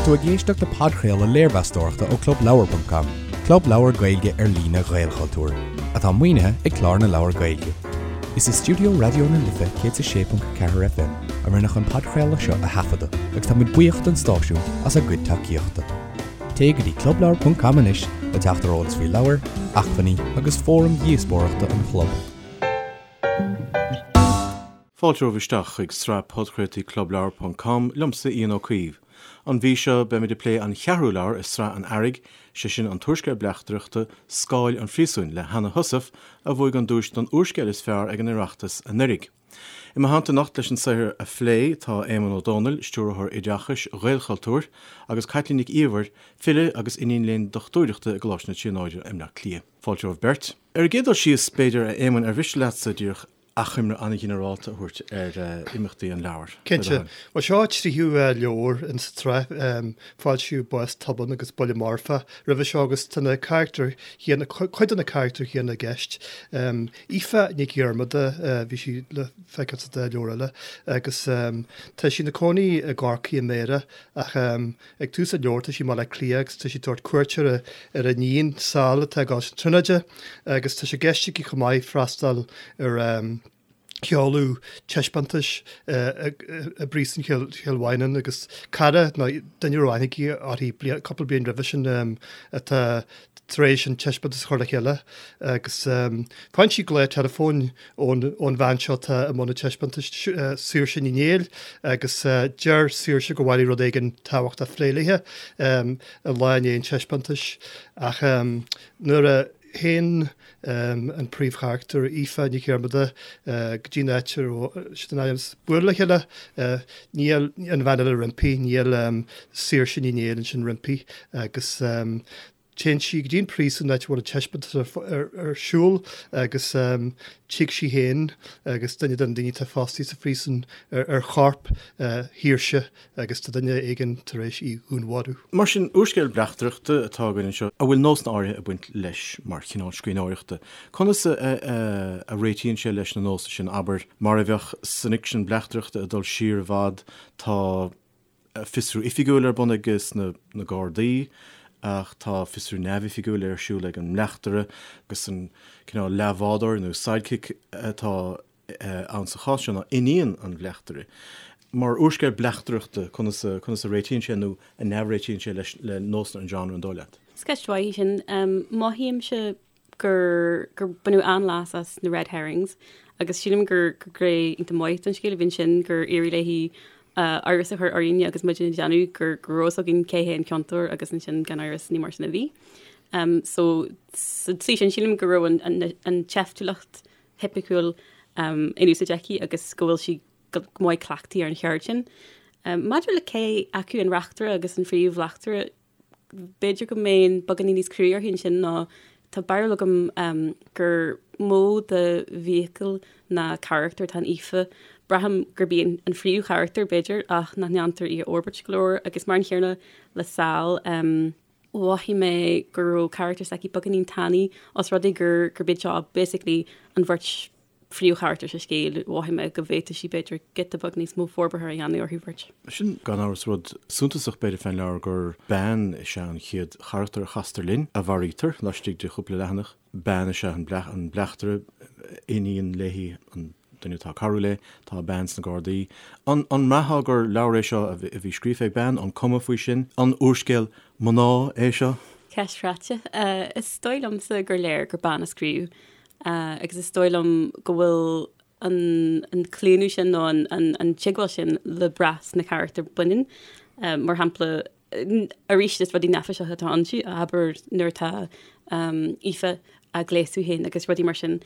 tú ag éisteacht le podchraoladh léirmheastóireachta ó ClubLeabhar.com, club leabhar Gaeilge ar líne Ghaelchultúir, atá maoinithe ag Clár na Leabhar Gaeilge. Is i stiúideo Raidió na Life 106.4 FM a rinneadh an podchraoladh seo a thaifeadadh agus tá muid buíoch don stáisiún as a gcuid tacaíochta. Téigh go dtí clubleabhar.com anois le teacht ar eolas faoi leabhair, acmhainní agus fóraim dhíospóireachta an chlub. Fáilte romhaibh isteach chuig sraith podchraoltaí Clubleabhar ponc com, liomsa Ian Ó Caoimh. An mhí seo, beimid ag plé an cheathrú leabhar i sraith an Earraigh, sé sin an t-úrscéal bleachtaireachta Scáil an Phríosúin le Hanna Heussaff, a bhuaigh an duais don úrscéal is fearr ag an Oireachtas anuraidh. I mo theannta anocht leis an saothar a phlé tá Éamonn Ó Dónaill, Stiúrthóir Oideachais Ghaelchultúir, agus Caitlín Nic Íomhair, file agus iníon léinn dochtúireachta i gColáiste na Tríonóide i mBleá Cliath. Fáilte romhaibh beirt. Ar an gcéad dul síos, b'fhéidir, a Éamoinn, ar mhiste leatsa díreach achoimre an-ghinearálta a thabhairt ar imeachtaí an leabhair? Cinnte. Bhuel, seo an tríú leabhar in sa tsraith. Foilsíodh Bás Tobann agus Buille Marfach roimhe seo agus tá na carachtair chéanna, cuid de na carachtair chéanna i gceist. Aoife Nic Dhiarmada, bhí sí le feiceáil sa dá leabhar eile agus tá sí ina cónaí i gCorcaigh i mBéarra ach Ag tús an leabhair tá sí i mBaile Átha Cliath agus tá sí ag tabhairt cuairt ar a iníon, Sal, atá ag gabháil chun na Tríonóide agus tá sé i gceist aici chomh maith freastal ar sheoladh taispeántais i bPríosún Chill Mhaighneann agus cara nó duine a raibh aithne aici uirthi cúpla bliain roimhe sin atá tar éis an taispeántas a chur le chéile agus faigheann sí glao teileafóin ón bhean seo atá i mbun an taispeántais, Saoirse Ní Néill, agus deir Saoirse gur mhaith léi rud éigin tábhachtach a phlé léi an lá i ndiaidh an taispeántais ach nuair a théann an príomhcharachtar, Aoife Nic Dhiarmada, go dtí an áit a raibh siad in ainm is bualadh le chéile, níl an bhean eile roimpi, níl Saoirse Ní Néill ansin roimpi agus téann sí go dtí an príosún, an áit a bhfuil an taispeántas ar siúl agus tig sí féin agus duine de na daoine atá fostaithe sa phríosún ar chorp Shaoirse agus tá duine éigin tar éis í dhúnmharú. Mar sin, úrscéal bleachtaireachta atá againn anseo a bhfuil nósanna áirithe ag baint leis mar chineál scríbhneoireachta. Conas a réitíonn sé leis na nósanna sin, abair, mar a bheadh san fhicsean bleachtaireachta ag dul siar i bhfad, tá fiosrú oifigiúil ar bun ag na Gardaí ach tá fiosrú neamhoifigiúil ar siúl ag an mbleachtaire agus an cineál leathbhádóir nó sidekick atá ann sa chás seo ná iníon an bhleachtaire. Mar úrscéal bleachtaireachta, conas a, conas a réitíonn sé nó a neamhréitíonn sé leis, le nósanna an genre, an dóigh leat? Is ceist mhaith í sin. Mothaímse gur, gur baineadh an-leas as na red herrings agus sílim gur, gur gné iontach maith den scéal a bhí ansin gur éirigh léi amhras a chur orainne agus muid ag déanamh gur, go raibh fhios againn cé hé an ciontóir agus ansin gan amhras ní mar sin a bhí. So sa tslí sin sílim go raibh an, an, an tseiftiúlacht thipiciúil in úsáid aici agus go bhfuil sí go maith cleachtaithe ar an cheird sin. Maidir le cé acu an reachtaire agus an phríomh-bhleachtaire, b'fhéidir go mbeinn beagáinín níos crua uirthi ansin ná tá barúil agam gur mó de vehicle ná carachtar atá in Aoife. Braithim gurb í an phríomhcharachtar, b'fhéidir, ach nach ndéantar í a fhorbairt go leor agus mar an chéanna le Sal. Mhothaigh mé go raibh carachtar s'aici beagáinín tanaí os rud é gur gurb iad seo basically an bheirt phríomhcharachtar sa scéal, mhothaigh mé go bhféadfadh sí b'fhéidir giota beag níos mó forbartha a dhéanamh orthu bheirt. Sin gan amhras rud suntasach b'fhéidir fén leabhar gur bean is ea an chéad charachtar a chastar linn, a mharaítear laistigh de chúpla leathanach. Bean is ea an bleachtaire, iníon léi an duine atá ag cabhrú léi, tá bean sna Gardaí. An mbraithfeá gur leabhar é seo a bhí scríofa ag bean? An cuma faoi sin? An úrscéal mná é seo? Ceist chráite. Is dóigh liomsa gur léir gur bean a scríobh agus is dóigh liom go bhfuil an claonadh sin nó an teagmháil sin le brath sna carachtair baineann. Mar shampla, arís is rudaí neafaiseacha atá ann, abair nuair atá Aoife á gléasadh féin agus rudaí mar sin.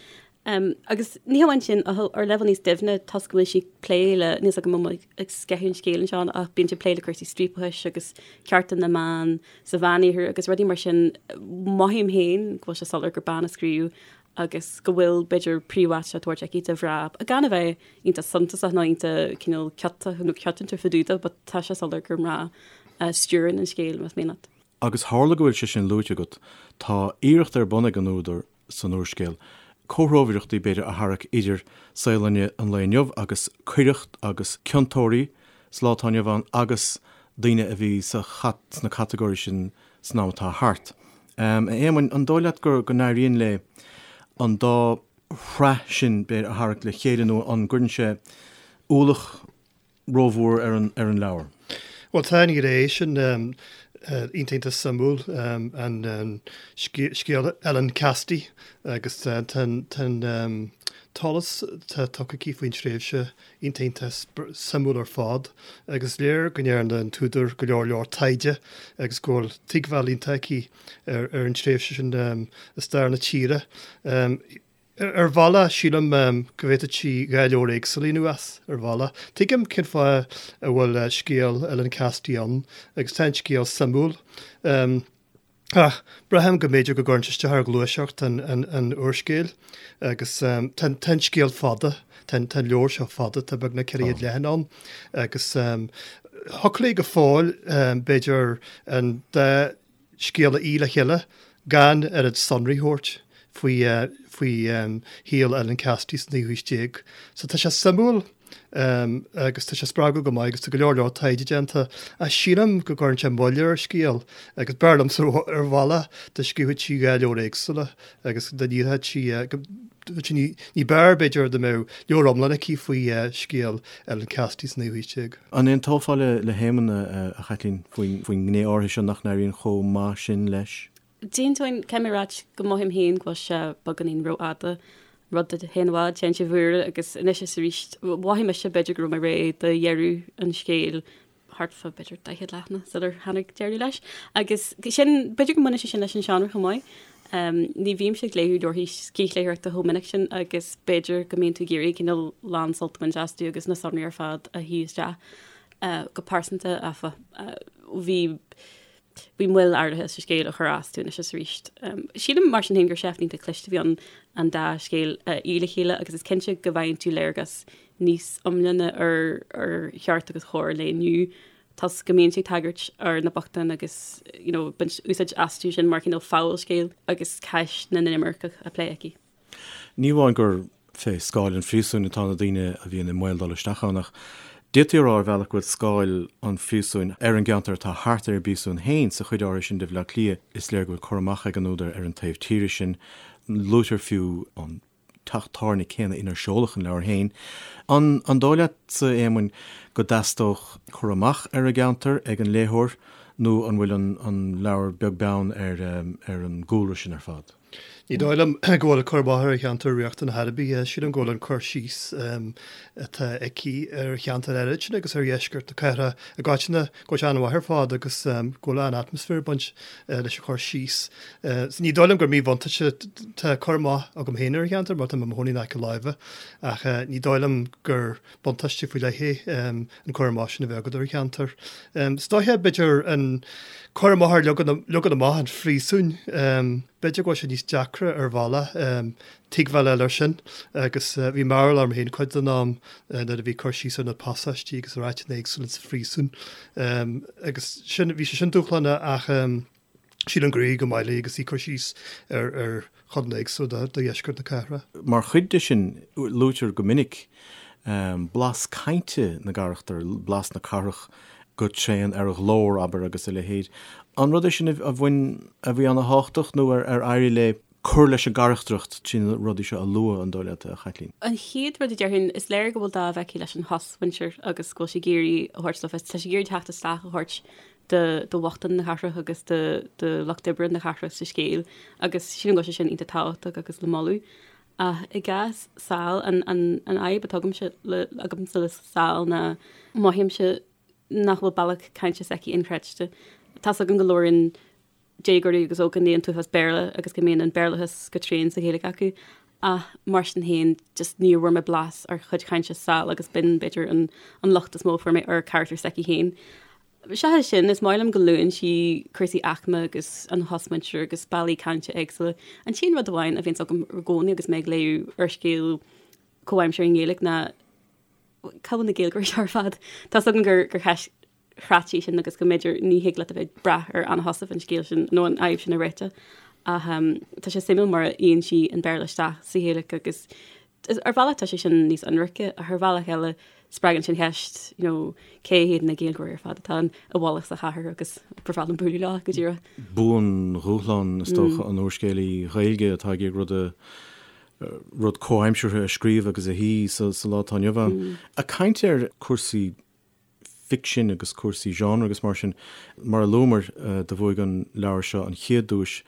Agus ní hamháin sin, ach ar leibhéal níos doimhne, toisc go bhfuil sí ag plé le, níl 's agam an bhfuil mé ag sceitheadh an scéil anseo, ach bíonn sí ag plé le cúrsaí striapachais agus cearta na mban sa Mheánoirthear agus rudaí mar sin, mothaím féin go bhfuil sé soiléir gur bean a scríobh agus go bhfuil, b'fhéidir, príomháit á tabhairt aici do mhná, gan a bheith iontach suntasach nó iontach cineál ciotach nó ciotrúnta fá dtaobh de, but tá sé soiléir gur mná a stiúrann an scéal, más mian leat. Agus tharla go bhfuil sé sin luaite agat, tá iarracht ar bun ag an údar san úrscéal, comhthreomhaireachtaí, b'fhéidir, a tharrac idir saol an lae inniu agus coireacht agus ciontóirí sa lá atá inniu ann agus. daoine a bhí sa sna catagóirí sin san am atá thart. A Éamoinn, an dóigh leat go n-éiríonn léi an dá shraith sin, b'fhéidir, a tharrac le chéile nó an gcuireann sé ualach rómhór ar an ar an leabhar? Bhuel, tá an ghné sin iontach iontach suimiúil, an scéal Ellen Cassidy agus tá an t-eolas atá tugtha aici faoin tréimhse iontach iontach suimiúil ar fad agus is léir go ndearna an t-údar go leor leor taighde agus go bhfuil tuigbheáil iontach aici ar an tréimhse sin i stair na tíre. Ar bhealach, sílim go bhféadfadh sí 2 leabhar éagsúla a dhéanamh as, ar bhealach. Tuigim cén fáth a bhfuil scéal Ellen Cassidy ann agus tá an scéal suimiúil. Ach braithim go mb'fhéidir go gcuireann sé isteach ar ghluaiseacht an úrscéil agus tá an scéal fada, tá an leabhar seo fada, tá beagnach 400 leathanach ann agus thiocfadh léi go fóill b'fhéidir an dá scéal a fhí le chéile gan oiread sonraí a thabhairt faoi faoi shaol Ellen Cassidy sa naoú haois déag. So tá sé suimiúil. agus tá sé spreagúil go maith agus tá go leor leor taighde déanta ach sílim go gcuireann sé moill ar an scéal agus b'fhearr liomsa ar bhealach dá scríobhadh sí 2 leabhar éagsúla agus dá ndíreodh sí ní b'fhearr b'fhéidir dá mbeadh leabhar iomlán aici faoi scéal Ellen Cassidy sa naoú haois déag. An aontófá le hÉamonn, a Chaitlín, faoin ngné áirithe seo nach n-éiríonn chomh maith sin leis? D'aontóinn, caithfidh mé a ráit go mothaím féin go bhfuil sé beagáinín rófhada, rud a théann i bhfad, téann sé i bhfuaire agus anois is arís mhothaigh mise b'fhéidir go raibh mé réidh do dheireadh an scéil thart fá b'fhéidir 40 leathanach sular tháinig deireadh leis. Agus sin, b'fhéidir go mbaineann sé sin leis an seánra chomh maith. Ní bhímse ag léamh leabharthaí scíthléitheoireachta chomh minic sin agus b'fhéidir go mbíonn tú ag iarraidh cineál lán sult a bhaint astu agus na sonraí ar fad a shuí isteach. Go pearsanta, áfach, bhí Bhí moill áirithe sa scéal a chuir as domh anois is arís. Sílim mar sin féin gur seift iontach cliste a bhí ann an dá scéal a fhí le chéile agus is cinnte go bhfaigheann tú léargas níos iomláine ar ar cheart agus chóir an lae inniu toisc go mbíonn sí ag tagairt ar na bochtáin agus you know baint úsáid astu sin mar chineál fabhalscéal agus ceist na n-inimirceach á plé aici. Ní amháin gur fé scáil an phríosúin atá na daoine a bhíonn i mbaol dul isteach ann, ach d'fhéadfaí a rá ar bhealach go bhfuil scáil an phríosúin ar an gceantar atá thart ar an bpríosún féin sa chuid áirithe sin de Bhaile Átha Cliath. Is léir go bhfuil cur amach ag an údar ar an taobh tíre sin. Luaitear fiú an teach tábhairne céanna inar seoladh an leabhar féin. An dóigh leatsa, a Éamoinn, go dteastódh cur amach ar an gceantar ag an léitheoir nó an bhfuil an leabhar beag beann ar an gcúlra sin ar fad? Ní dóigh liom go bhfuil cur amach ar an cheantar riachtanach ar bith. Sílim go bhfuil an cur síos atá aici ar cheantar áirid sin agus ar dheisceart na cathrach i gcoitinne, go bhfuil sé an-mhaith ar fad agus go bhfuil an-atmaisféar ag baint leis an chur síos. Ní dóigh liom gur míbhuntáiste, tá cur amach agam féin ar an cheantar mar tá mé i mo chónaí in aice láimhe ach ní dóigh liom gur buntáiste faoi leith é an cur amach sin a bheith agat ar an cheantar. Is dóiche, b'fhéidir, an cur amach ar leagan amach an phríosúin, b'fhéidir go bhfuil sé níos deacra ar bhealach tuigbheáil a fháil air sin agus bhí mearbhall orm féin cuid den am nuair a bhí cur síos ar na pasáistí agus ar áiteanna éagsúla sa phríosún agus sin, bhí sé sin dúshlánach ach sílim gur éirigh go maith léi agus í ag cur síos ar chodanna éagsúla de dheisceart na cathrach. Mar chuid de sin, luaitear go minic blas cainte na gcarachtar, blas na cathrach go tréan ar a ghlór, abair, agus a leithéid. An rud é sin a bhain, a bhí ana-thábhachtach nó ar éirigh léi cur leis an gcarachtracht trí na rudaí seo a lua, an dóigh leat, a Chaitlín? An chéad rud a déarfainn, is léir go bhfuil dáimh aici leis an chosmhuintir agus go bhfuil sí ag iarraidh a thabhairt le fios, tá sí ag iarraidh teacht isteach a thabhairt do bhochtáin na cathrach agus do lucht oibre na cathrach sa scéal agus sílim go bhfuil sé sin iontach tábhachtach agus le moladh. Ach i gcás Sal, an fhadhb atá agamsa le agamsa le Sal ná mothaímse nach bhfuil bealach cainte s'aici inchreidte. Tá's agam go labhraíonn déagóirí agus ógánaigh an t-uafás Béarla agus go mbíonn an Béarlachas go tréan sa Ghaeilge acu ach mar sin féin just níor bhfuair mé blas ar chuid chainte Sal agus b'in b'fhéidir an an locht is mó a fuair mé ar charachtar s'aici féin. Seachas sin, is maith liom go luann sí cúrsaí aicme agus an chosmhuintir agus bealaí cainte éagsúla. An t-aon rud amháin a bhíonns agam i gcónaí agus mé ag léamh úrscéal comhaimseartha i nGaeilge ná cá bhfuil na Gaeilgeoirí seo ar fad? Tá's agam gur gur cheist chráite í sin agus go mb'fhéidir ní thig leat a bheith ag brath ar Anna Heussaff an scéal sin nó an fhadhb sin a réiteach. Ach tá sé suimiúil mar a fhíonn sí an Béarla isteach sa Ghaeilge agus. Ar bhealach tá sé sin níos ionraice ach ar bhealach eile spreagann sin ceist, you know, cé hiad na Gaeilgeoirí ar fad atá i bhfolach sa chathair agus ba bhreá liom bualadh leo go díreach. Buandhúshlán is dócha an úrscéalaí Ghaeilge atá ag iarraidh rud a rud comhaimseartha a scríobh agus a shuí sa lá atá inniu ann. Ag caint ar cúrsaí ficsin agus cúrsaí genre agus mar sin, mar a luamar, do bhuaigh an leabhar seo an chéad duais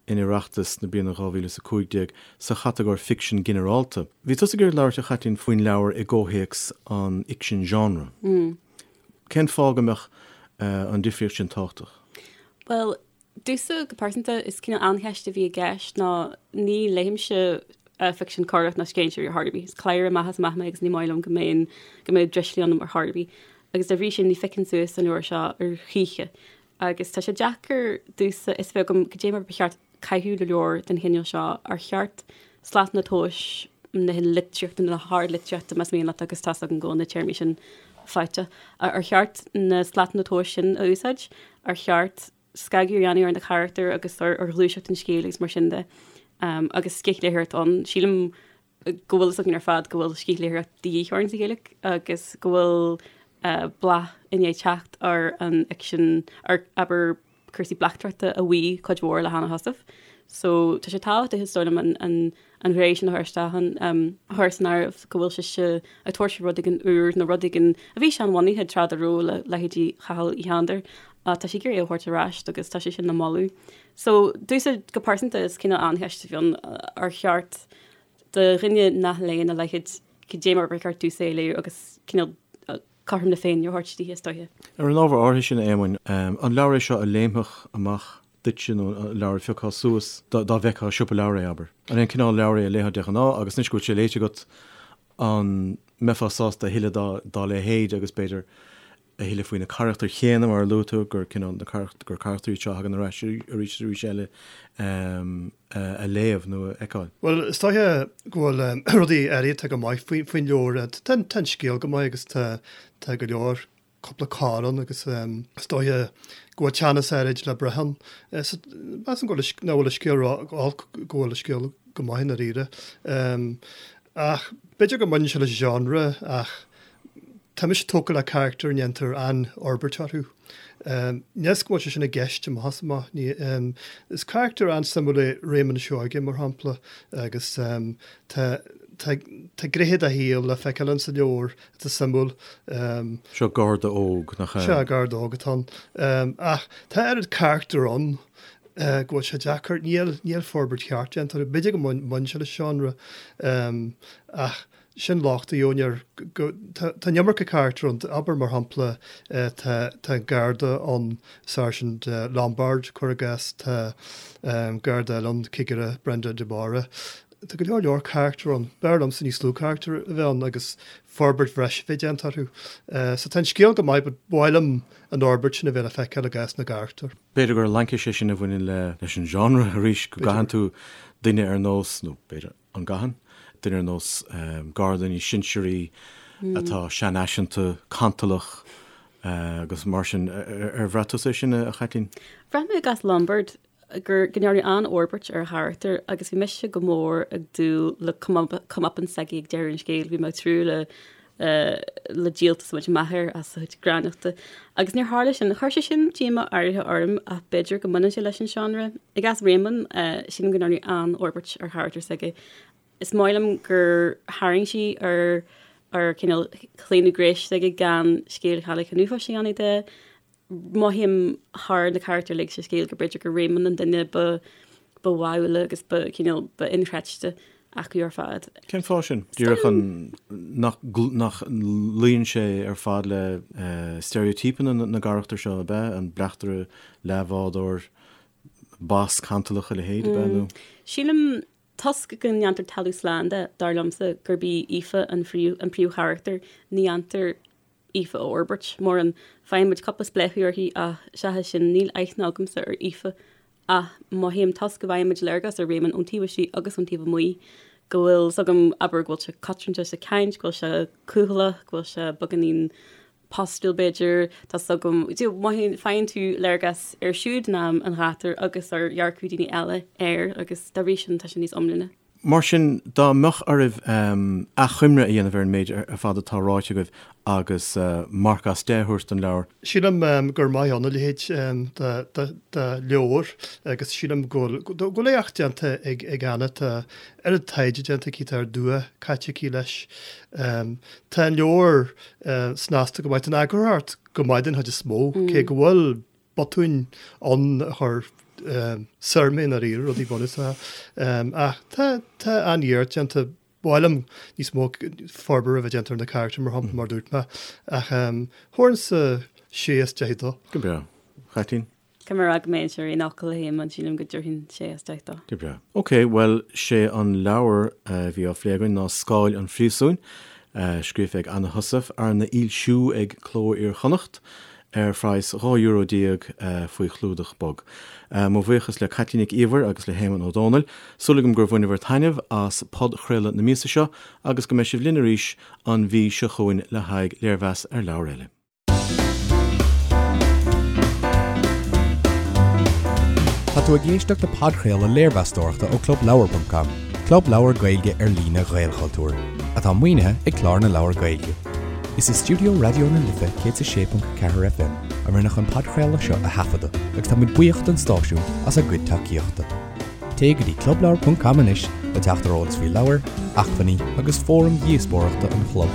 in Oireachtas na bliana 2015 sa chatagóir ficsean ginearálta. Bhí tusa ag iarraidh labhairt, a Chaitlín, faoin leabhar i gcomhthéacs an fhicsin genre. Cén fáth go mbeadh an difríocht sin tábhachtach? Bhuel, Domhsa, go pearsanta, is cineál an-cheist a bhí i gceist ná ní léimse ficsean coireach ná scéinséirí ar chor ar bith. Is cladhaire amach is amach mé agus ní maith liom go mbeinn, go mbeadh drislig ionam ar chor ar bith. Agus dá bhrí sin ní phiocfainn suas an leabhar seo ar choíche. Agus tá sé deacair domhsa fhios a bheith agam cad é mar ba cheart caitheamh le leabhar den chineál seo. Ar cheart slatanna tomhais na litríochta, na hardlitríochta más mian leat agus tá's agam go bhfuil na téarmaí sin faighte. Ar cheart na slatanna tomhais sin a úsáid? Ar cheart scagadh a dhéanamh ar na carachtair agus ar ghluaiseacht an scéil agus mar sin de. Agus scíthléitheoireacht ann. Sílim go bhfuil fhios againn ar fad go bhfuil scíthléitheoireacht de dhíth orainn sa Ghaeilge agus go bhfuil bláth i ndiaidh teacht ar an fhicsean, ar, abair, cúrsaí bleachtaireachta a bhuí cuid mhór le hAnna Heussaff. So tá sé tábhachtach is dóigh liom an, an, an ghné sin a chur isteach ann, a chur san áireamh go bhfuil sise ag tabhairt rud éigin úr nó rud éigin a bhí seanbhunaithe tráth dá raibh le leithéidí Chathail Uí Shándair ach tá sí ag iarraidh é a thabhairt ar ais agus tá sé sin le moladh. So domhsa go pearsanta is cineál an-cheist a bhí ann ar cheart do dhuine nach léann a leithéid cad é mar ba cheart domhsa é a léamh agus cineál cothrom na Féinne a thabhairt di, is dóiche. Ar an ábhar áirithe sin, a Éamoinn, an leabhar é seo a léimfeadh amach duitse nó leabhar a phiocfá suas dá bhfeicfeá i siopa leabhar é, abair? An é an cineál leabhar é a léifeá de ghnáth agus anois go bhfuil sé léite agat, an mbeifeá sásta a thuilleadh dá leithéid agus b'fhéidir a thuilleadh faoi na carachtair chéanna mar a luaigh tú, gur cineál na gur carachtair iad seo a thagann ar ais arís is arís eile a léamh nó a fheiceáil? Bhuel, is dóiche go bhfuil rudaí áirithe atá go maith faoin leabhar. Tá an scéal go maith agus tá tá go leor cúpla cor ann agus is dóiche go bhfuil teannas áirid le brath ann. Measaim go bhfuil nach bhfuil an scéal ró-olc, go bhfuil an scéal go maith i ndáiríre. Ach b'fhéidir go mbaineann sé leis an genre ach tá mise tógtha le carachtair a ndéantar an-fhorbairt orthu. Níl 'fhios go bhfuil sé sin i gceist amach is amach. Is carachtar an-suimiúil é Réamonn Seoige, mar shampla, agus tá tá tá gnéithe dá shaol le feiceáil in sa leabhar atá suimiúil. Seo garda óg, nach ea? Sea, garda óg atá ann. Ach tá oiread carachtar ann go bhfuil sé deacair, níl níl forbairt cheart déanta orthu. B'fhéidir go mbaineann sé le seánra ach sin locht a gheobhainn air go tá tá an iomarca carachtar ann. Abair mar shampla tá tá an garda ann, Sáirsint Lombard, cuir i gcás, tá garda eile ann, cigire Brenda de Barra. Tá go leor leor carachtar ann. B'fhearr liomsa níos lú carachtar a bheith ann agus forbairt bhreise a bheith déanta orthu. So tá an scéal go maith but ba mhaith liom an fhorbairt sin a bheith le feiceáil i gcás na gcarachtar. B'fhéidir gur laincis é sin a bhaineann leis an genre arís, go gcaitheann tú duine ar nós, nó b'fhéidir an gcaitheann, duine ar nós garda níos sinsearaí atá seanfhaiseanta, cantalach agus mar sin. Ar bhraith tusa é sin, a Chaitlín? Bhraith mé i gcás Lombard gur go ndearnadh an-fhorbairt ar a charachtar agus bhí mise go mór ag dúil le comeuppance s'aige ag deireadh an scéil. Bhí mé ag tnúth le le díoltas a bhaint amach air as a chuid gránnachta. Agus níor tharla sin. Chuir sé sin díomá áirithe orm ach b'fhéidir go mbaineann sé leis an seánra. I gcás Réamonn, sílim go ndearnadh an-fhorbairt ar charachtar s'aige. Is maith liom gur tharraing sí ar ar cineál claonadh gnéis s'aige gan scéal Chailleach an Uafáis a dhéanamh de. Mothaím thar na carachtair uilig sa scéal gur b'fhéidir gur Réamonn an duine ba ba bháúla agus ba cineál ba inchreidte acu ar fad. Cén fáth sin? Díreach an nach nach luíonn sé ar fad le steiréitípeanna na gcarachtar seo, ab ea? An bleachtaire, leathbhádóir, bas cantalach, a leithéid, ab ea? Nó. Sílim toisc go ndéantar talamh slán de, dar liomsa, gurb í Aoife an an príomhcharachtar, ní dhéantar Aoife a fhorbairt mórán. Faigheann muid cúpla spléachadh uirthi ach seachas sin níl aithne agamsa ar Aoife ach mothaím toisc go bhfaigheann muid léargas ar Réamonn ón taobh istigh agus ón taobh amuigh go bhfuil 's agam, abair, go bhfuil sé cotranta sa chaint, go bhfuil sé cúthaileach, go bhfuil sé beagáinín postúil b'fhéidir, tá 's agam, mothaíonn, faigheann tú léargas air siúd in am an ghátair agus ar dhearcadh daoine eile air agus dá bhrí sin tá sé níos iomláine. Mar sin, dá mbeadh oraibh achoimre a dhéanamh ar an méid ar fad atá ráite agaibh agus marc as 10 a thabhairt don leabhar, Sílim gur maith ann a leithéid de leabhar agus sílim go bhfuil éacht déanta ag Anna. Tá oiread taighde déanta aici, tá oiread dua caite aici leis. Tá an leabhar snasta go maith, tá an eagarthóireacht go maith den chuid is mó, cé go bhfuil botúin ann a chuir soir mé i ndáiríre, rudaí bunúsacha. Ach tá tá an-iarracht déanta. Ba mhaith liom níos mó forbartha a bheith déanta ar na carachtair, mar shampla, mar a dúirt mé. Ach thabharfainnse sé as 10 dó. Go breá. Caitlín? Caithfidh mé a rá go mbeinnse ar aon fhocal le hÉamonn, sílim go dtabharfainn sé as 10 dó. Go breá. Ok, bhuel, sé an leabhar a bhí á phlé againn ná Scáil an Phríosúin, scríofa ag Anna Heussaff, arna fhoilsiú ag Cló Iar-Chonnacht ar phraghas €12 euro faoi chlúdach bog. Mo bhuíochas le Caitlín Nic Íomhair agus le hÉamonn Ó Dónaill. Súil agam gur bhaineabhair taitneamh as podchraoladh na míosa seo agus go mbeidh sibh linn arís an mhí seo chugainn le haghaidh léirmheas ar leabhar eile. Tá tú ag éisteacht le podchraoladh léirmheastóireachta ó ClubLeabhar.com, club leabhar Gaeilge ar líne Ghaelchultúir, atá maoinithe ag Clár na Leabhar Gaeilge. Is i stiúideo Raidió na Life 106.4 FM a rinneadh an podchraoladh seo a thaifeadadh agus tá muid buíoch don stáisiún as a gcuid tacaíochta. Téigh go dtí clubleabhar.com anois le teacht ar eolas faoi leabhair, acmhainní agus fóraim dhíospóireachta an chlub.